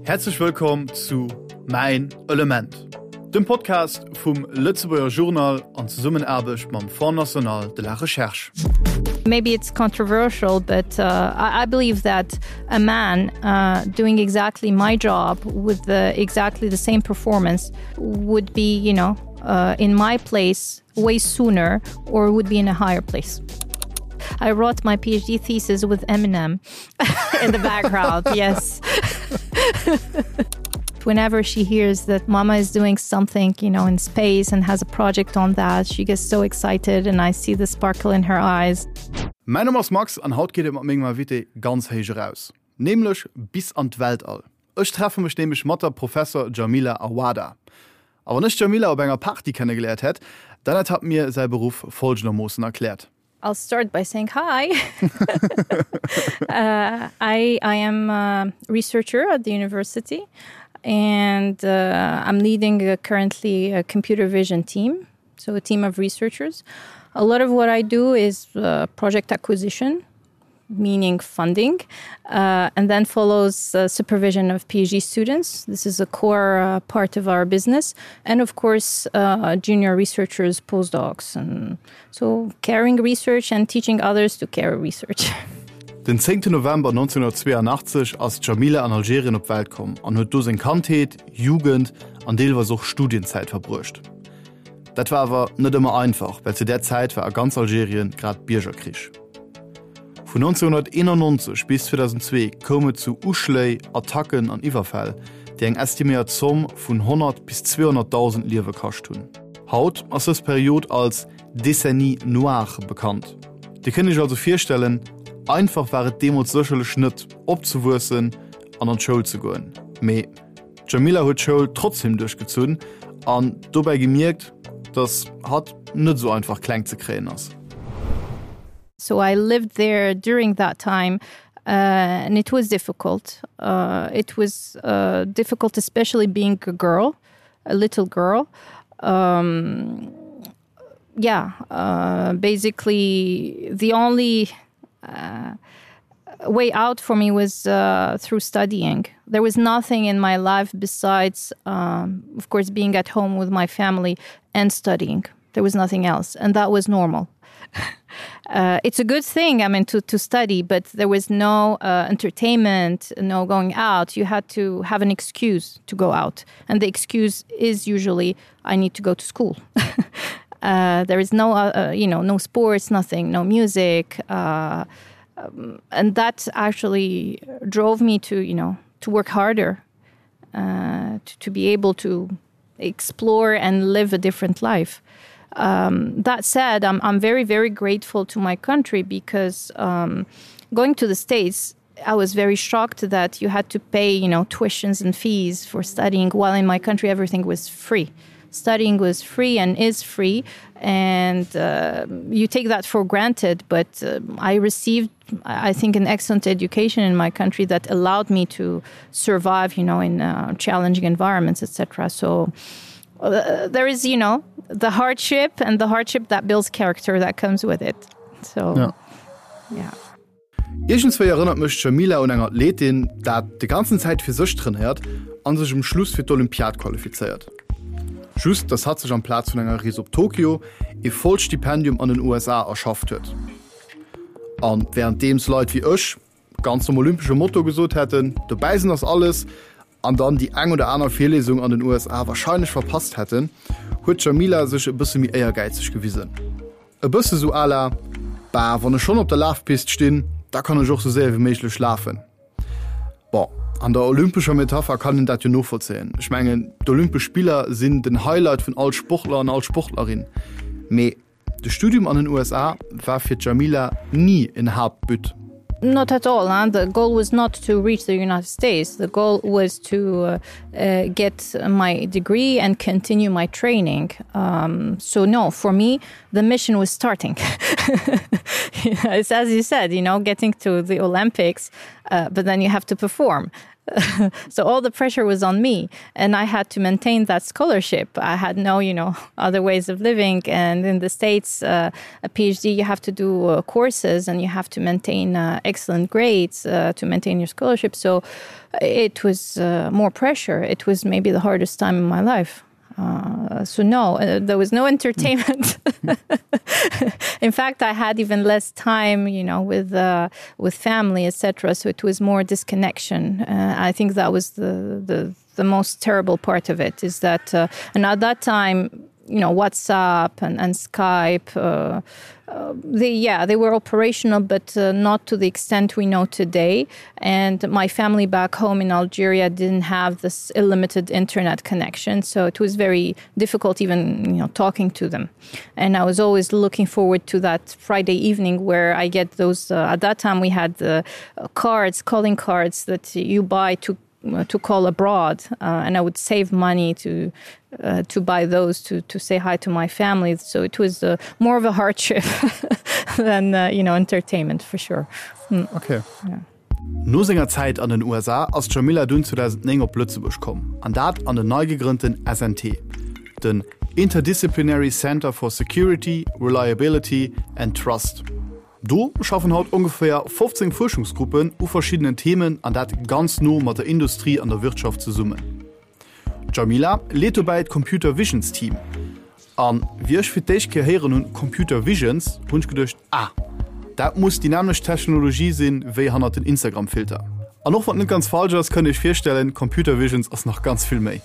Häerzlech wëllkomm zu Mäin Element, dem Podcast vum Lëtzebuerger Journal an Zesummenaarbecht mam Fonds National de la Recherche. Maybe it's controversial, but uh, I, I believe that a man uh, doing exactly my job with the, exactly the same performance would be, you know, uh, in my place way sooner or would be in a higher place. I wrote my PhD thesis with Eminem in the background. yes. Whenever she hears that mama is doing something, you know, in space and has a project on that, she gets so excited and I see the sparkle in her eyes. Mäin Numm ass Max an haut geet et mat mengem Invité ganz héich eraus, nämlech bis an d'Weltall. Ech treffe mech nämlech mat der Professor Djamila Awada. A wann ech d'Djamila op enger Party kennegeléiert hätt, dann hätt hatt mir säi Beruff folgendermoossen erkläert. I'll start by saying hi. uh, I, I am a researcher at the university and uh, I'm leading a, currently a computer vision team, so a team of researchers. A lot of what I do is uh, project acquisition, meaning funding, uh, and then follows uh, supervision of PhD students. This is a core uh, part of our business. And of course, uh, junior researchers, postdocs, and so carrying research and teaching others to carry research. Den 10. November 1982 ass d'Djamila an Algerien op d'Welt komm an huet do seng Kandheet, Jugend an deelweis och Studienzäit verbruecht. Dat war awer net ëmmer einfach, well zu där Zäit war a ganz Algerien grad Biergerkrich. Vun 1991 bis 2002 koum et zu Uschléi, Attacken an Iwwerfäll, déi eng estiméiert Zomm vun 100 bis 200.000 Liewe kascht hunn. Haut ass dës Period als Décennie noire bekannt. Dir kënnt Iech also virstellen, einfach war et deemools sécherlech net, opzewuessen an an d'Schoul ze goen. Mee d'Djamila huet d'Schoul trotzdeem duerchgezunn an dobäi gemierkt, dass hatt net esou einfach kleng ze kréien ass. So I lived there during that time uh, and it was difficult. Uh, it was uh, difficult, especially being a girl, a little girl. Um, yeah, uh, basically the only uh, way out for me was uh, through studying. There was nothing in my life besides, um, of course, being at home with my family and studying. There was nothing else, and that was normal. uh, it's a good thing, I mean, to, to study, but there was no uh, entertainment, no going out. You had to have an excuse to go out. And the excuse is usually, I need to go to school. uh, there is no, uh, uh, you know, no sports, nothing, no music. Uh, um, and that actually drove me to, you know, to work harder, uh, to, to be able to explore and live a different life. Um, that said, I'm, I'm very, very grateful to my country because um, going to the States, I was very shocked that you had to pay, you know, tuitions and fees for studying while in my country everything was free. Studying was free and is free, and uh, you take that for granted. But uh, I received, I think, an excellent education in my country that allowed me to survive, you know, in uh, challenging environments, etc. So uh, there is, you know, the hardship and the hardship that builds character that comes with it. So yeah. yeah. Iergendswéi erënnert mech d'Djamila un eng Athletin, dat de ganzen Zäit fir sech trainéiert an sech um Schluss fir d'Olympiad qualifizéiert. Just dass hatt sech amplaz vun enger Rees op Tokio ee vollt Stipendium an den USA erschafft huet. An wärenddeems Leit wéi ech ganz nom olympesche Motto gesot hätten, dobäi sinn ass alles, an dann déi eng oder aner Virlesung an den USA warscheinlech verpasst hätten, huet d'Djamila sech e bësse méi éiergäizeg gewisen. E bësse sou à la, Bah, wann ech schonn op der Lafpist stinn, da kann ech och sou séier wéi méiglech lafen. Bon, an der olympescher Metapher kann een dat jo novollzéien. Ech mengen, d'Olympesch Spiller sinn den Highlight vun all Sportler an all Sportlerin. Mee de Studium an den USA war fir d'Djamila ni en Haaptbut. Not at all. Huh? The goal was not to reach the United States. The goal was to uh, uh, get my degree and continue my training. Um, so no, for me, the mission was starting. it's as you said, you know, getting to the Olympics, uh, but then you have to perform. So all the pressure was on me and I had to maintain that scholarship. I had no you know other ways of living and in the States uh, a PhD you have to do uh, courses and you have to maintain uh, excellent grades uh, to maintain your scholarship. So it was uh, more pressure. It was maybe the hardest time in my life. Uh, so no, uh, there was no entertainment. In fact, I had even less time, you know, with uh, with family, etc. So it was more disconnection. Uh, I think that was the, the, the most terrible part of it is that uh, and at that time, you know WhatsApp and, and Skype uh, uh, they yeah they were operational but uh, not to the extent we know today and my family back home in Algeria didn't have this illimited internet connection so it was very difficult even you know talking to them and I was always looking forward to that Friday evening where I get those uh, at that time we had the uh, cards calling cards that you buy to Uh, to call abroad uh, and I would save money to uh, to buy those to to say hi to my family so it was uh, more of a hardship than uh, you know entertainment for sure mm. okay yeah. No senger Zäit an den USA ass d'Djamila dunn 2009 op Lëtzebuerg komm, an dat an den nei gegrënnten SNT, den Interdisciplinary Center for Security, Reliability and Trust. Do schaffen haut ongeféier 15 Fuerschungsgruppen u verschiddenen Themen, an dat ganz no mat der Industrie an der Wirtschaft zesummen. D'Djamila leet dobäi d'Computer Visions Team. An wéi ech fir d'éischt Kéier héieren hunn Computer Visions, hunn ech geduecht, ah, dat muss déi nämmlecht Technologie sinn, wéi hannert den Instagram-Filter. An och wann et net ganz falsch ass, kënnt Iech virstellen, Computer Visions ass nach ganz vill méi.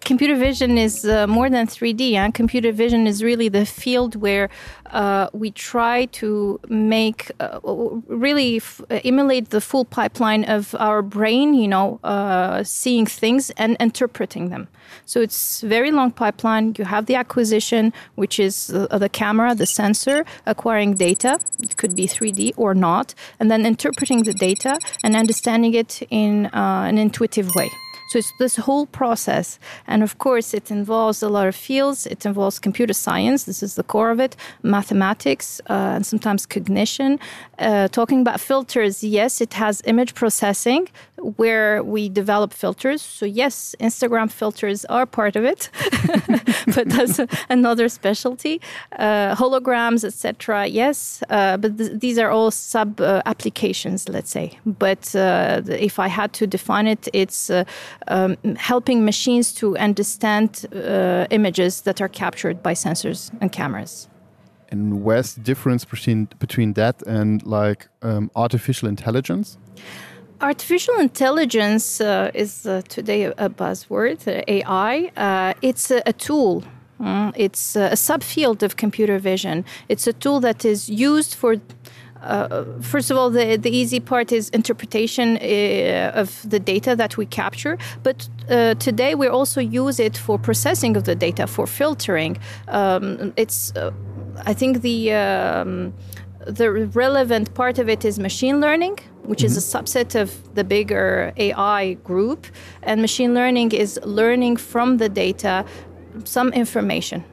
Computer vision is uh, more than 3D and computer vision is really the field where uh, we try to make uh, really uh, emulate the full pipeline of our brain, you know, uh, seeing things and interpreting them. So it's very long pipeline. You have the acquisition, which is the, uh, the camera, the sensor acquiring data. It could be 3D or not, and then interpreting the data and understanding it in uh, an intuitive way. So it's this whole process. And of course, it involves a lot of fields. It involves computer science. This is the core of it, mathematics, uh, and sometimes cognition. Uh, talking about filters, yes, it has image processing where we develop filters. So yes, Instagram filters are part of it, but that's another specialty. Uh, holograms, etc. Yes, uh, but th these are all sub uh, applications, let's say. But uh, if I had to define it, it's uh, um, helping machines to understand uh, images that are captured by sensors and cameras. And where's the difference between between that and like um, artificial intelligence? Artificial intelligence uh, is uh, today a buzzword, uh, AI. Uh, it's a, a tool. Mm, it's a subfield of computer vision. It's a tool that is used for uh, first of all, the, the easy part is interpretation uh, of the data that we capture. But uh, today we also use it for processing of the data, for filtering. Um, it's, uh, I think the, um, the relevant part of it is machine learning, which mm -hmm. is a mm-hmm. subset of the bigger AI group. And machine learning is learning from the data some information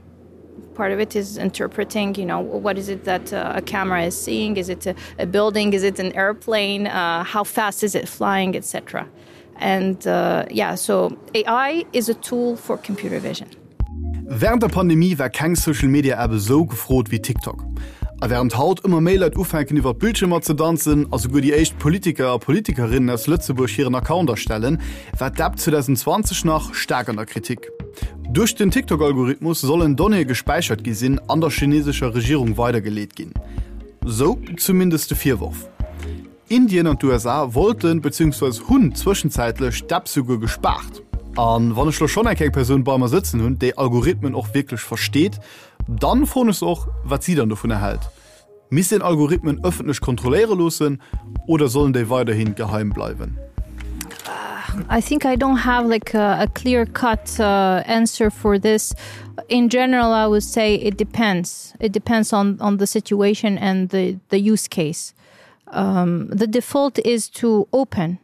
part of it is interpreting you know what is it that uh, a camera is seeing is it a, a building is it an airplane uh, how fast is it flying etc and uh, yeah so AI is a tool for computer vision Während der Pandemie war keng Social Media App esou gefrot wéi TikTok. A wärend haut ëmmer méi Leit ufänken iwwer Bildschiermer ze danzen a souguer déi éischt Politiker a Politikerinnen aus Lëtzebuerg hiren Account erstellen, war d'App 2020 nach staark an der Kritik. Duerch den TikTok-Algorithmus sollen Donnéeë gespäichert gi sinn an der chinesescher Regierung weidergeleet ginn. Sou zumindest de Virworf. Indien an d'USA wollten, beziehungsweise hunn zwëschenzäitlech d'App souguer gespaart. An wann ech lo schonn eng kleng Persoun bei mer sëtzen hunn, déi Algorithmen och wierklech versteet, dann froen ech se och, wat si dann dovunner hält. Misst een Algorithmen ëffentlech kontrolléiere loossen oder sollen déi weiderhi geheim bleiwen? I think I don't have like a, a clear cut uh, answer for this. In general, I would say it depends. It depends on, on the situation and the, the use case. Um, the default is to open.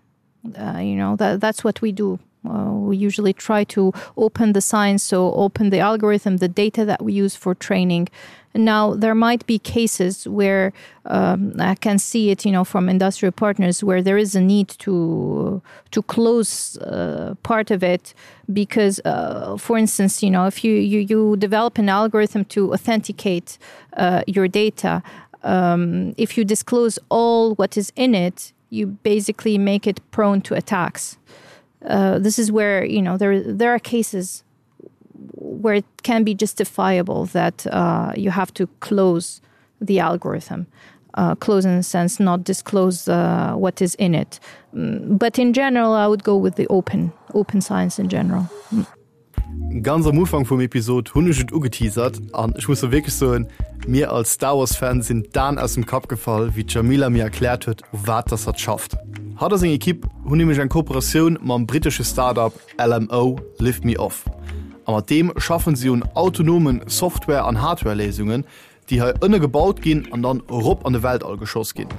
Uh, you know, that, that's what we do. Uh, we usually try to open the science, so open the algorithm, the data that we use for training. Now there might be cases where um, I can see it you know from industrial partners where there is a need to to close uh, part of it because uh, for instance you know if you you, you develop an algorithm to authenticate uh, your data um, if you disclose all what is in it you basically make it prone to attacks uh, this is where you know there there are cases where it can be justifiable that uh, you have to close the algorithm uh, close in a sense not disclose uh, what is in it mm, but in general I would go with the open open science in general mm. Ganz am Ufank vum Episod hunn ech et ugeteasert an ech muss lo wierklech soen, mir als Star Wars Fan sinn d'Aen aus dem Kapp gefall, wéi d'Djamila mir erkläert huet, u wat dass hatt schafft. Hatt a seng Ekipp hunn nämlech eng Kooperatioun mam brittesche Start-up LMO, Lift Me Off, a mat deem schaffen si un autonomen Software an Hardware-Léisungen, déi hei ënne gebaut ginn an dann erop an de Weltall geschoss ginn.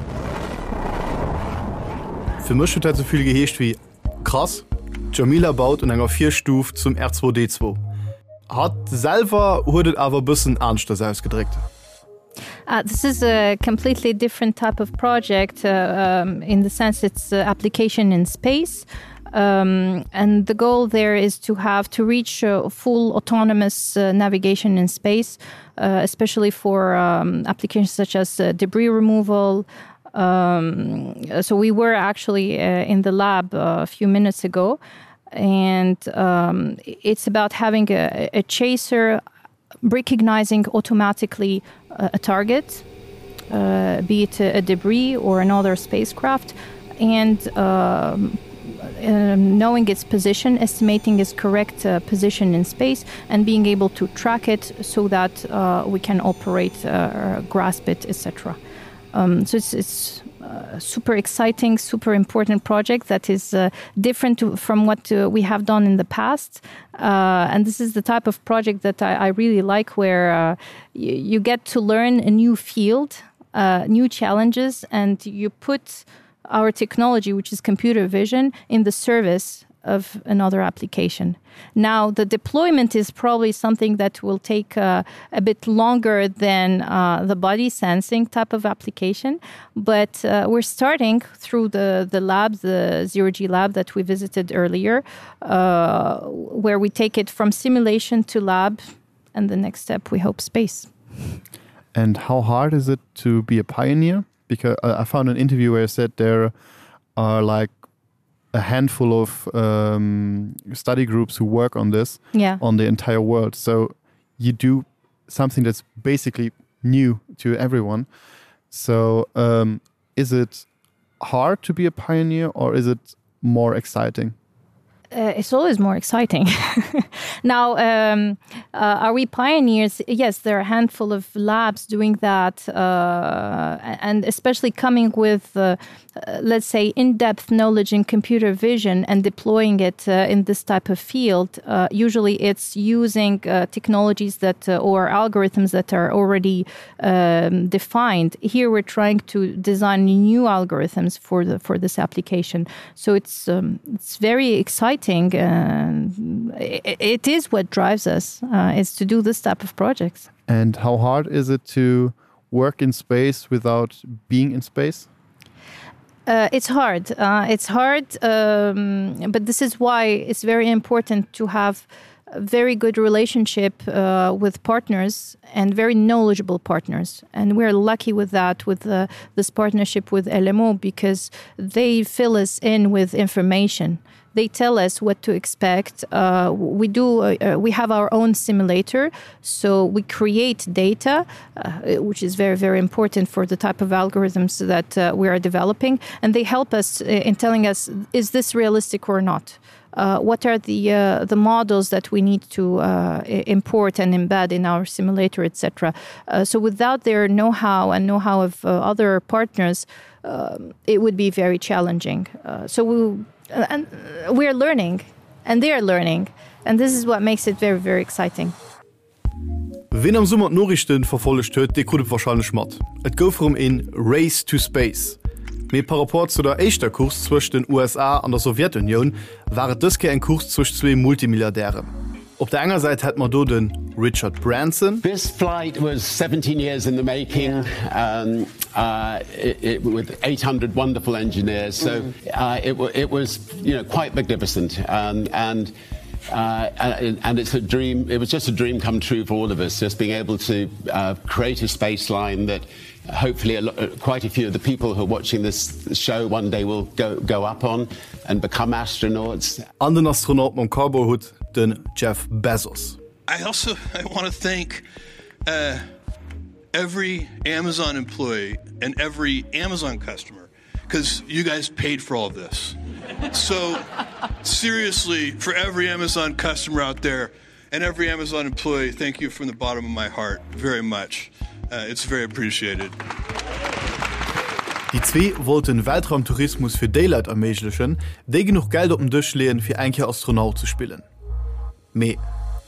Fir mech huet dat esou vill geheescht wéi, Krass, d'Djamila baut un enger Virstuf zum R2-D2. Hatt selwer huet et awer e bëssen aneschters ausgedréckt. Uh, this is a completely different type of project uh, um, in the sense it's uh, application in space. Um, and the goal there is to have to reach uh, full autonomous uh, navigation in space, uh, especially for um, applications such as uh, debris removal. Um, so we were actually uh, in the lab uh, a few minutes ago, and um, it's about having a, a chaser recognizing automatically a, a target, uh, be it a, a debris or another spacecraft, and um, um, knowing its position, estimating its correct uh, position in space, and being able to track it so that uh, we can operate, uh, grasp it, etc. Um, so it's, it's uh, super exciting, super important project that is uh, different to, from what uh, we have done in the past. Uh, and this is the type of project that I, I really like where uh, you, you get to learn a new field, uh, new challenges, and you put our technology, which is computer vision, in the service of another application. Now the deployment is probably something that will take uh, a bit longer than uh, the body sensing type of application, but uh, we're starting through the, the lab, the zero G lab that we visited earlier, uh, where we take it from simulation to lab and the next step we hope space. And how hard is it to be a pioneer? Because uh, I found an interview where I said there are like a handful of um, study groups who work on this yeah. on the entire world. So you do something that's basically new to everyone. So um, is it hard to be a pioneer or is it more exciting? Uh, it's always more exciting. Now, um, uh, are we pioneers? Yes, there are a handful of labs doing that, uh, and especially coming with, uh, uh, let's say, in-depth knowledge in computer vision and deploying it uh, in this type of field. Uh, usually it's using uh, technologies that uh, or algorithms that are already um, defined. Here we're trying to design new algorithms for the for this application. So it's um, it's very exciting and it, it is what drives us uh, is to do this type of projects. And how hard is it to work in space without being in space? Uh, it's hard. Uh, it's hard, um, but this is why it's very important to have a very good relationship uh, with partners and very knowledgeable partners. And we're lucky with that, with uh, this partnership with LMO, because they fill us in with information. They tell us what to expect. Uh, we do. Uh, uh, we have our own simulator, so we create data, uh, which is very, very important for the type of algorithms that uh, we are developing. And they help us uh, in telling us, is this realistic or not? Uh, what are the uh, the models that we need to uh, import and embed in our simulator, etc. Uh, so without their know-how and know-how of uh, other partners, um, it would be very challenging. Uh, so we, uh, and uh, we are learning and they are learning and this is what makes it very, very exciting. Ween am Summer d'Noriichten verfollegt huet, dee krut et warscheinlech mat, Et gouf erëm een Race to Space. Mee par rapport zu der éischter Course zwëscht den USA an der Sowjetunioun war et dës Kéier eng Course zwëscht zwee Multimilliardären. Op der enger Säit hätt mer do de Richard Branson. This flight was 17 years in the making um, uh, it, it, with 800 wonderful engineers. So mm. uh, it, it was you know, quite magnificent. Um, and Uh, and, and it's a dream it was just a dream come true for all of us just being able to uh, create a space line that hopefully a uh, quite a few of the people who are watching this show one day will go go up on and become astronauts an den Astronaut mam Cowboyhutt den Jeff Bezos I also I want to thank uh, every Amazon employee and every Amazon customer because you guys paid for all this. So seriously, for every Amazon customer out there and every Amazon employee, thank you from the bottom of my heart very much. Uh, it's very appreciated. Déi zwee wollten Weltraumtourismus fir déi Leit erméiglechen, déi genuch Geld op den Dësch leeën, fir eng Kéier Astronaut ze spillen. Mee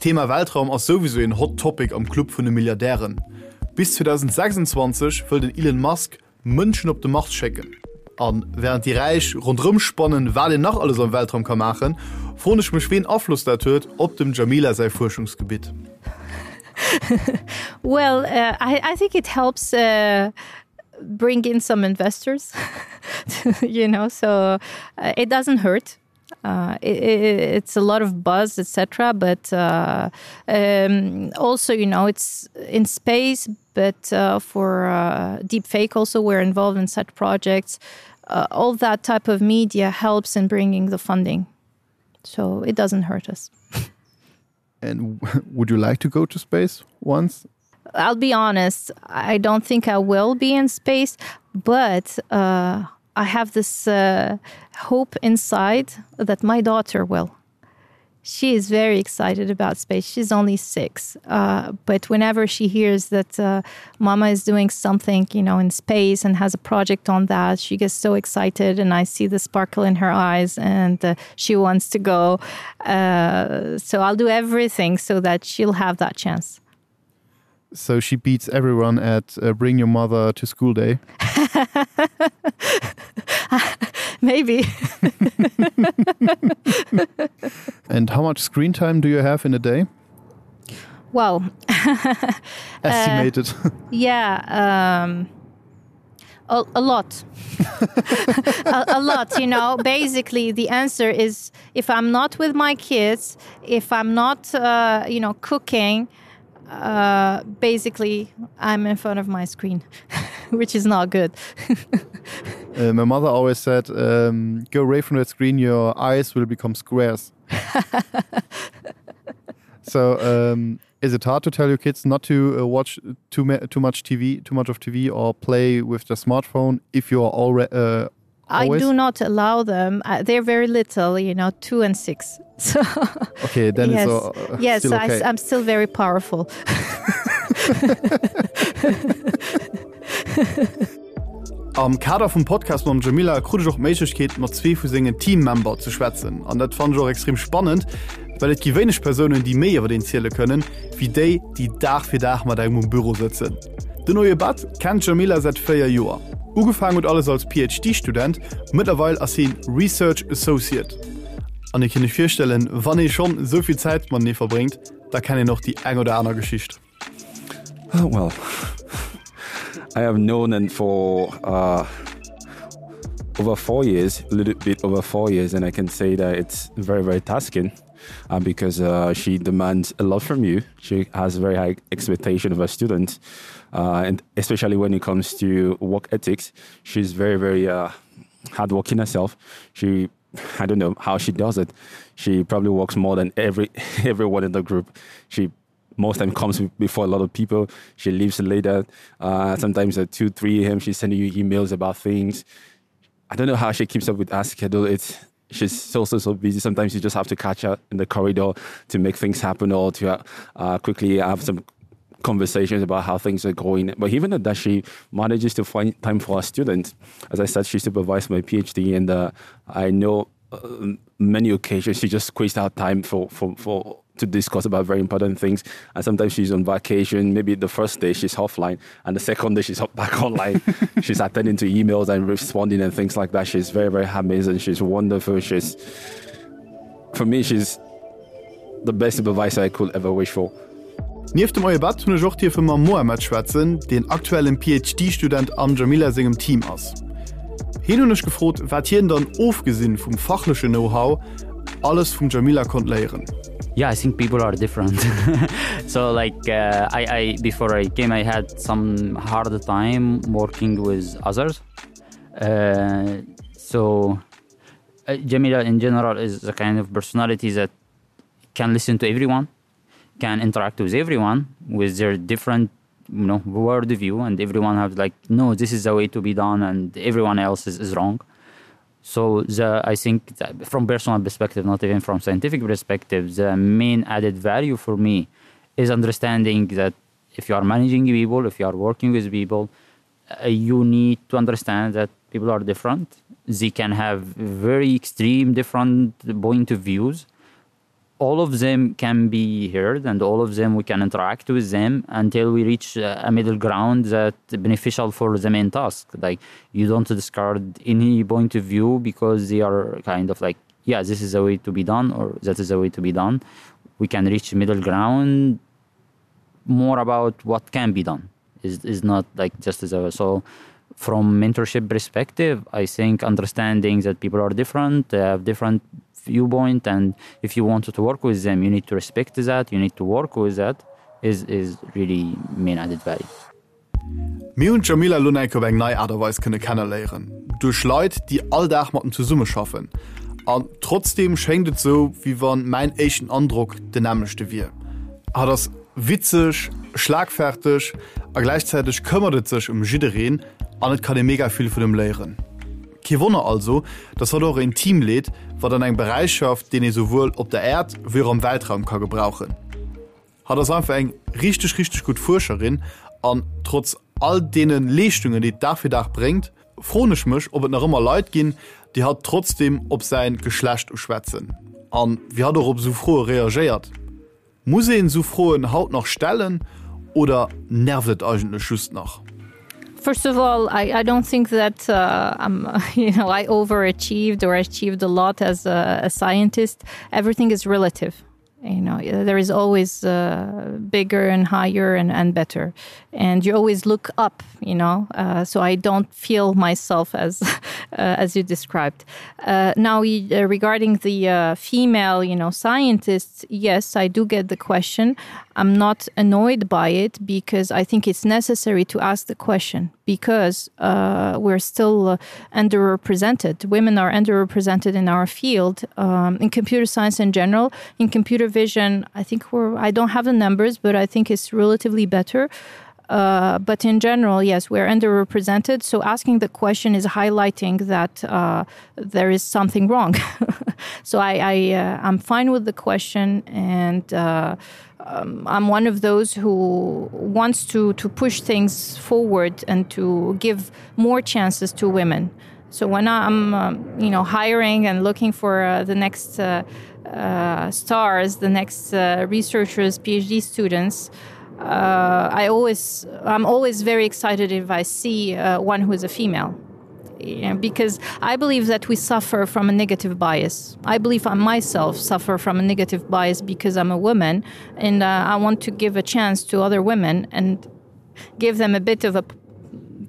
d'Thema Weltraum ass souwisou een Hot Topic am Club vun de Milliardären. Bis 2026 wëll den Elon Musk Mënschen op de Mars schécken. A wärend déi Räich ronderëm spannen, wat een nach alles am Weltraum ka maachen, froen ech mech ween Afloss dat huet op dem Djamila säi Fuerschungsgebitt. Well, uh, I, I think it helps uh, bring in some investors, you know, so uh, it doesn't hurt. Uh, it, it, it's a lot of buzz, etc. But uh, um, also, you know, it's in space, but uh, for uh, deepfake also we're involved in such projects. Uh, all that type of media helps in bringing the funding. So it doesn't hurt us. And would you like to go to space once? I'll be honest, I don't think I will be in space, but uh, I have this uh, hope inside that my daughter will. She is very excited about space. She's only six. Uh, but whenever she hears that uh, mama is doing something, you know, in space and has a project on that, she gets so excited and I see the sparkle in her eyes and uh, she wants to go. Uh, so I'll do everything so that she'll have that chance. So she beats everyone at uh, bring your mother to school day. Maybe. And how much screen time do you have in a day? Well, estimated. Uh, yeah, um, a, a lot. a, a lot, you know. Basically, the answer is if I'm not with my kids, if I'm not, uh, you know, cooking, uh, basically I'm in front of my screen, which is not good. uh, my mother always said, um, go away from that screen, your eyes will become squares. so um, is it hard to tell your kids not to uh, watch too, too much TV, too much of TV or play with the smartphone if you are already uh, I do not allow them. Uh, they're very little, you know, two and six. So okay, then yes, it's, uh, yes, still okay. I, I'm still very powerful. Am Kader vum Podcast mam Djamila krut ech och d'Méiglechkeet mat zwee vu sengen Teammember ze schwätzen. An dat fannen ech och extrem spannend, well et gi wéineg Persounen, déi méi iwwer een ziele kënnen, wéi déi, déi Dag fir Dag mat engem um Büro sëtzen. Den Oye Bat kennt d'Djamila säit 4 Joer. Ugefaangen huet alles als PhD-Student, mëttlerweil ass hien Research Associate. An dir kënnt iech virstellen, wann ee schonn esou vill Zäit matenee verbréngt, da kennt een och déi eng oder aner Geschicht. Oh, well, I have known him for uh, over four years, a little bit over four years, and I can say that it's very, very tasking uh, because uh, she demands a lot from you. She has very high expectation of her students, uh, and especially when it comes to work ethics, she's very, very uh, hardworking herself. She I don't know how she does it. She probably works more than every everyone in the group. She most time comes before a lot of people. She leaves later. Uh, sometimes at 2, 3 a.m., she's sending you emails about things. I don't know how she keeps up with her schedule. It's she's so so so busy. Sometimes you just have to catch her in the corridor to make things happen or to uh, uh, quickly have some conversations about how things are going. But even at that, she manages to find time for her students. As I said, she supervised my PhD, and uh, I know uh, many occasions she just squeezed out time for for for. to discuss about very important things. And sometimes she's on vacation. Maybe the first day she's offline and the second day she's back online. she's attending to emails and responding and things like that. She's very, very amazing. She's wonderful. She's for me, she's the best supervisor I could ever wish for. Nieft dem Oyebad hunn ech och dierfe mam Mohamed schwätzen, deen aktuellen PhD-Student am Jamila sengem Team ass. Hien hunn ech gefrot, wat hien dann ofgesinn vum fachlechen Know-how alles vum Jamila konnt léieren. Yeah, I think people are different. so like uh, I, I before I came, I had some hard time working with others. Uh, so uh, Jamila in general is the kind of personality that can listen to everyone, can interact with everyone with their different you know world view and everyone has like no this is the way to be done and everyone else is, is wrong so the I think that from personal perspective not even from scientific perspective the main added value for me is understanding that if you are managing people if you are working with people uh, you need to understand that people are different they can have very extreme different point of views all of them can be heard and all of them we can interact with them until we reach a middle ground that beneficial for the main task like you don't discard any point of view because they are kind of like yeah this is a way to be done or that is a way to be done we can reach middle ground more about what can be done is is not like just as a so from mentorship perspective I think understanding that people are different they have different viewpoint and if you wanted to work with them you need to respect that you need to work with that is is really main added value. Mir hunn d'Jamila Lunek op eng nei Aart a Weis kënne kenneléieren, duerch Leit, déi all Dag mat em zesummeschaffen. An trotzdeem schéngt et sou, wéi wann mäin éischten Androck den nämmlechte wier. Hatt ass witzeg, schlagferteg a gläichzäiteg këmmert et sech ëm jiddereen an et kann ee mega vill vun em léieren. Kee Wonner also, dass hatt och een Team leet, wat an engem Beräich schafft, deen ee souwuel op der Äerd wéi och am Weltraum ka gebrauchen. Hatt ass einfach eng richteg, richteg gutt Fuerscherin an trotz all deene Leeschtungen, déi et Dag fir Dag bréngt, froen ech mech, ob et nach ëmmer Leit ginn, déi hatt trotzdeem op säin Geschlecht uschwätzen an wéi hatt och op esou Froe reagéiert. Muss een esou Froen haut nach stellen oder nervt et eigentlech just nach? First of all, I, I don't think that uh, I'm, you know, I overachieved or achieved a lot as a, a scientist. Everything is relative you know there is always uh, bigger and higher and, and better and you always look up you know uh, so I don't feel myself as uh, as you described uh, now uh, regarding the uh, female you know scientists yes I do get the question I'm not annoyed by it because I think it's necessary to ask the question because uh, we're still uh, underrepresented women are underrepresented in our field um, in computer science in general in computer vision I think we're I don't have the numbers but I think it's relatively better uh, but in general yes we're underrepresented so asking the question is highlighting that uh, there is something wrong so I, I uh, I'm fine with the question and uh, um, I'm one of those who wants to to push things forward and to give more chances to women. So when I'm um, you know hiring and looking for uh, the next uh, uh, stars, the next uh, researchers, PhD students, uh, I always I'm always very excited if I see uh, one who is a female because I believe that we suffer from a negative bias. I believe I myself suffer from a negative bias because I'm a woman and uh, I want to give a chance to other women and give them a bit of a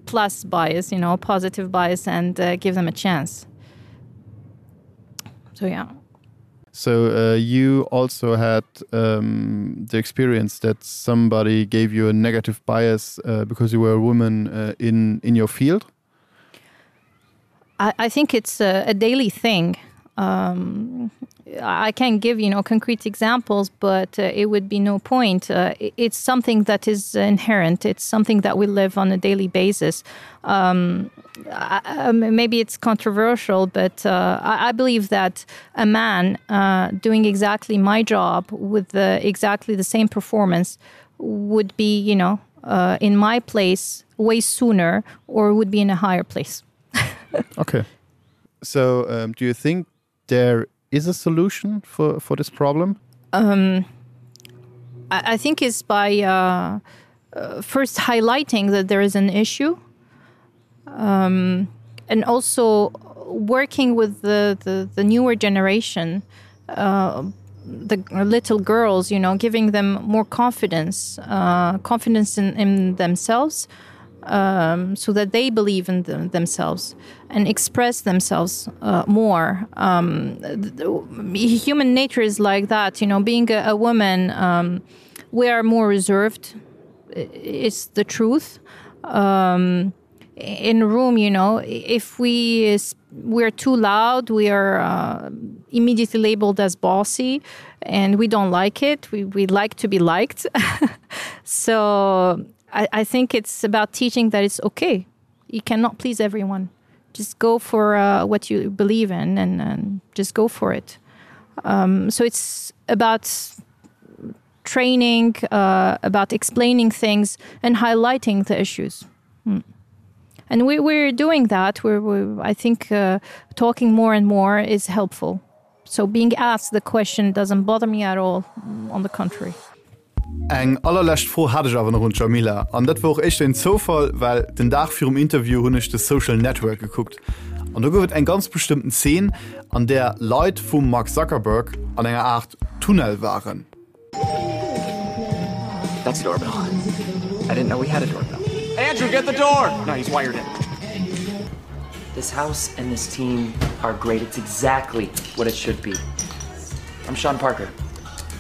plus bias, you know, positive bias and uh, give them a chance. So yeah. So uh, you also had um, the experience that somebody gave you a negative bias uh, because you were a woman uh, in, in your field? I, I think it's a, a daily thing. Um, I can't give you know concrete examples, but uh, it would be no point. Uh, it's something that is inherent. It's something that we live on a daily basis. Um, I, um, maybe it's controversial, but uh, I, I believe that a man uh, doing exactly my job with the, exactly the same performance would be you know uh, in my place way sooner or would be in a higher place. okay. So um, do you think there is a solution for, for this problem? Um, I, I think it's by uh, uh, first highlighting that there is an issue um, and also working with the, the, the newer generation, uh, the little girls, you know, giving them more confidence, uh, confidence in, in themselves, um, so that they believe in them, themselves and express themselves uh, more. Um, the, human nature is like that, you know, being a, a woman, um, we are more reserved. It's the truth. Um, in a room you know if we we're too loud we are uh, immediately labeled as bossy and we don't like it we, we like to be liked so I, I think it's about teaching that it's okay you cannot please everyone just go for uh, what you believe in and, and just go for it um, so it's about training uh, about explaining things and highlighting the issues mm. And we, we're doing that we're, we're I think uh, talking more and more is helpful. So being asked the question doesn't bother me at all on the contrary. Eng allerlescht Fro hat ech awer nach un d'Djamila, an dat wor och éischter een Zoufall, well den Dag virum Interview hunn ech The Social Network gekuckt an do gouf et eng ganz bestëmmten Zeen, an där Leit vum Mark Zuckerberg an enger Aart Tunnel waren. That's a doorbell. I didn't know we had a doorbell. Andrew, get the door! No, he's wired in. This house and this team are great. It's exactly what it should be. I'm Sean Parker.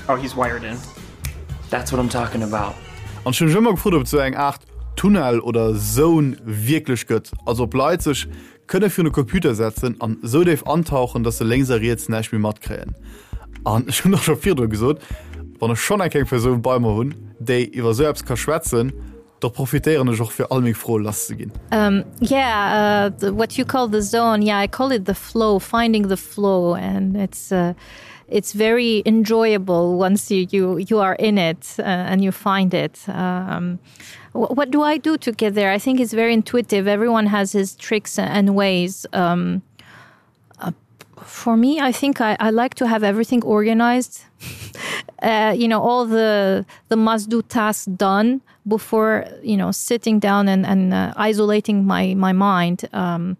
Oh, he's wired in. That's what I'm talking about. An ech hunn mech ëmmer gefrot, ob et sou eng Aart Tunnel oder Zone wierklech gëtt, also ob Leit sech kënne virun de Computer setzen an esou déif antauchen, dass se lénks a riets näischt méi matkréien. An ech hunn och scho virdru gesot, wann ech schonn eng kleng Persoun bei mer hunn, déi iwwer esou eppes ka schwätzen, da profitéieren ech och fir all meng Froe lasszeginn. Um, yeah, uh, the, what you call the zone, yeah, I call it the flow, finding the flow and it's uh, it's very enjoyable once you, you, you are in it uh, and you find it. Um, what do I do to get there? I think it's very intuitive. Everyone has his tricks and ways. Um, uh, for me, I think I, I like to have everything organized. uh, you know, all the, the must do tasks done before, you know, sitting down and, and uh, isolating my, my mind. Um,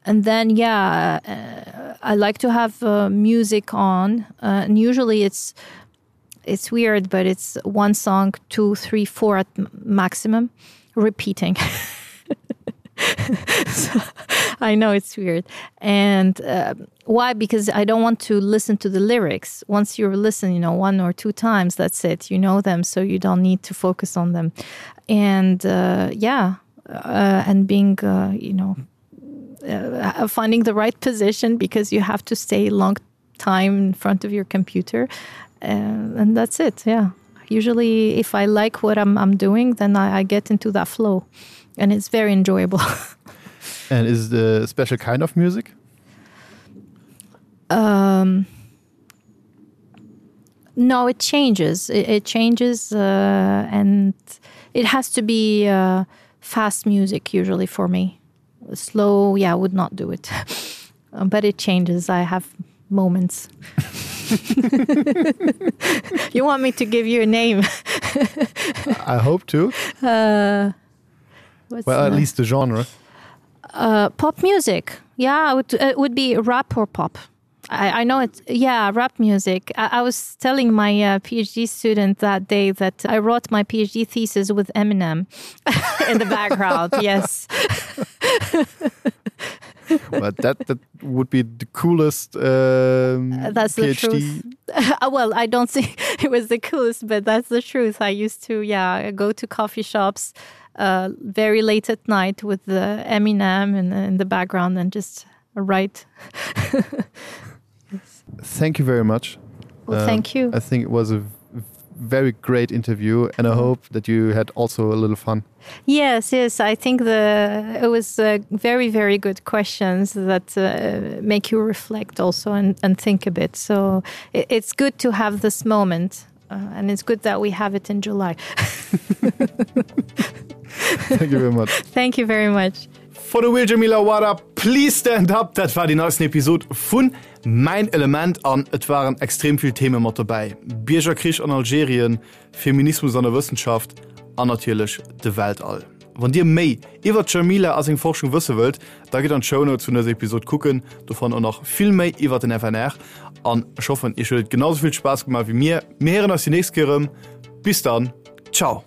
and then, yeah, uh, I like to have uh, music on. Uh, and usually it's, it's weird, but it's one song, two, three, four at maximum repeating. so, I know it's weird. And uh, why? Because I don't want to listen to the lyrics. Once you listen, you know, one or two times, that's it. You know them, so you don't need to focus on them. And uh, yeah, uh, and being, uh, you know, uh, finding the right position because you have to stay long time in front of your computer. Uh, and that's it. Yeah. Usually if I like what I'm, I'm doing, then I, I get into that flow and it's very enjoyable. and is the special kind of music? Um, no, it changes. It, it changes uh, and it has to be uh, fast music usually for me. Slow, yeah, I would not do it. Um, but it changes. I have moments. you want me to give you a name? I hope to. Uh, well, at least the genre. Uh, pop music. Yeah, it would, it would be rap or pop. I, I know it's yeah rap music. I, I was telling my uh, PhD student that day that I wrote my PhD thesis with Eminem in the background. yes. but that that would be the coolest um, uh, that's PhD. the truth. Uh, well, I don't think it was the coolest, but that's the truth. I used to yeah go to coffee shops uh, very late at night with the Eminem in, in the background and just write. yes. Thank you very much. Well, um, thank you. I think it was a very great interview and I hope that you had also a little fun. Yes, yes, I think the it was uh, very, very good questions that uh, make you reflect also and, and think a bit. So it, it's good to have this moment uh, and it's good that we have it in July. Thank you very much. Thank you very much. For the Real Jamila Wada, please stand up! Dat war déi neisten Episod vun Mäin Element an et waren extrem vill Theme mat dobäi, Biergerkrich an Algerien, Feminismus an der Wëssenschaft an natierlech de Weltall. Wann dir méi iwwert d'Jamila a seng Forschung wësse wëllt, da gitt an d'Shownotes vun dëser Episod kucken, do fannt der nach vill méi iwwert den FNR. An ech hoffen, iech huet et genau sou vill Spaass gemaach wéi mir. Mir héieren eis déi nächst Kéier erëm. Bis dann, ciao!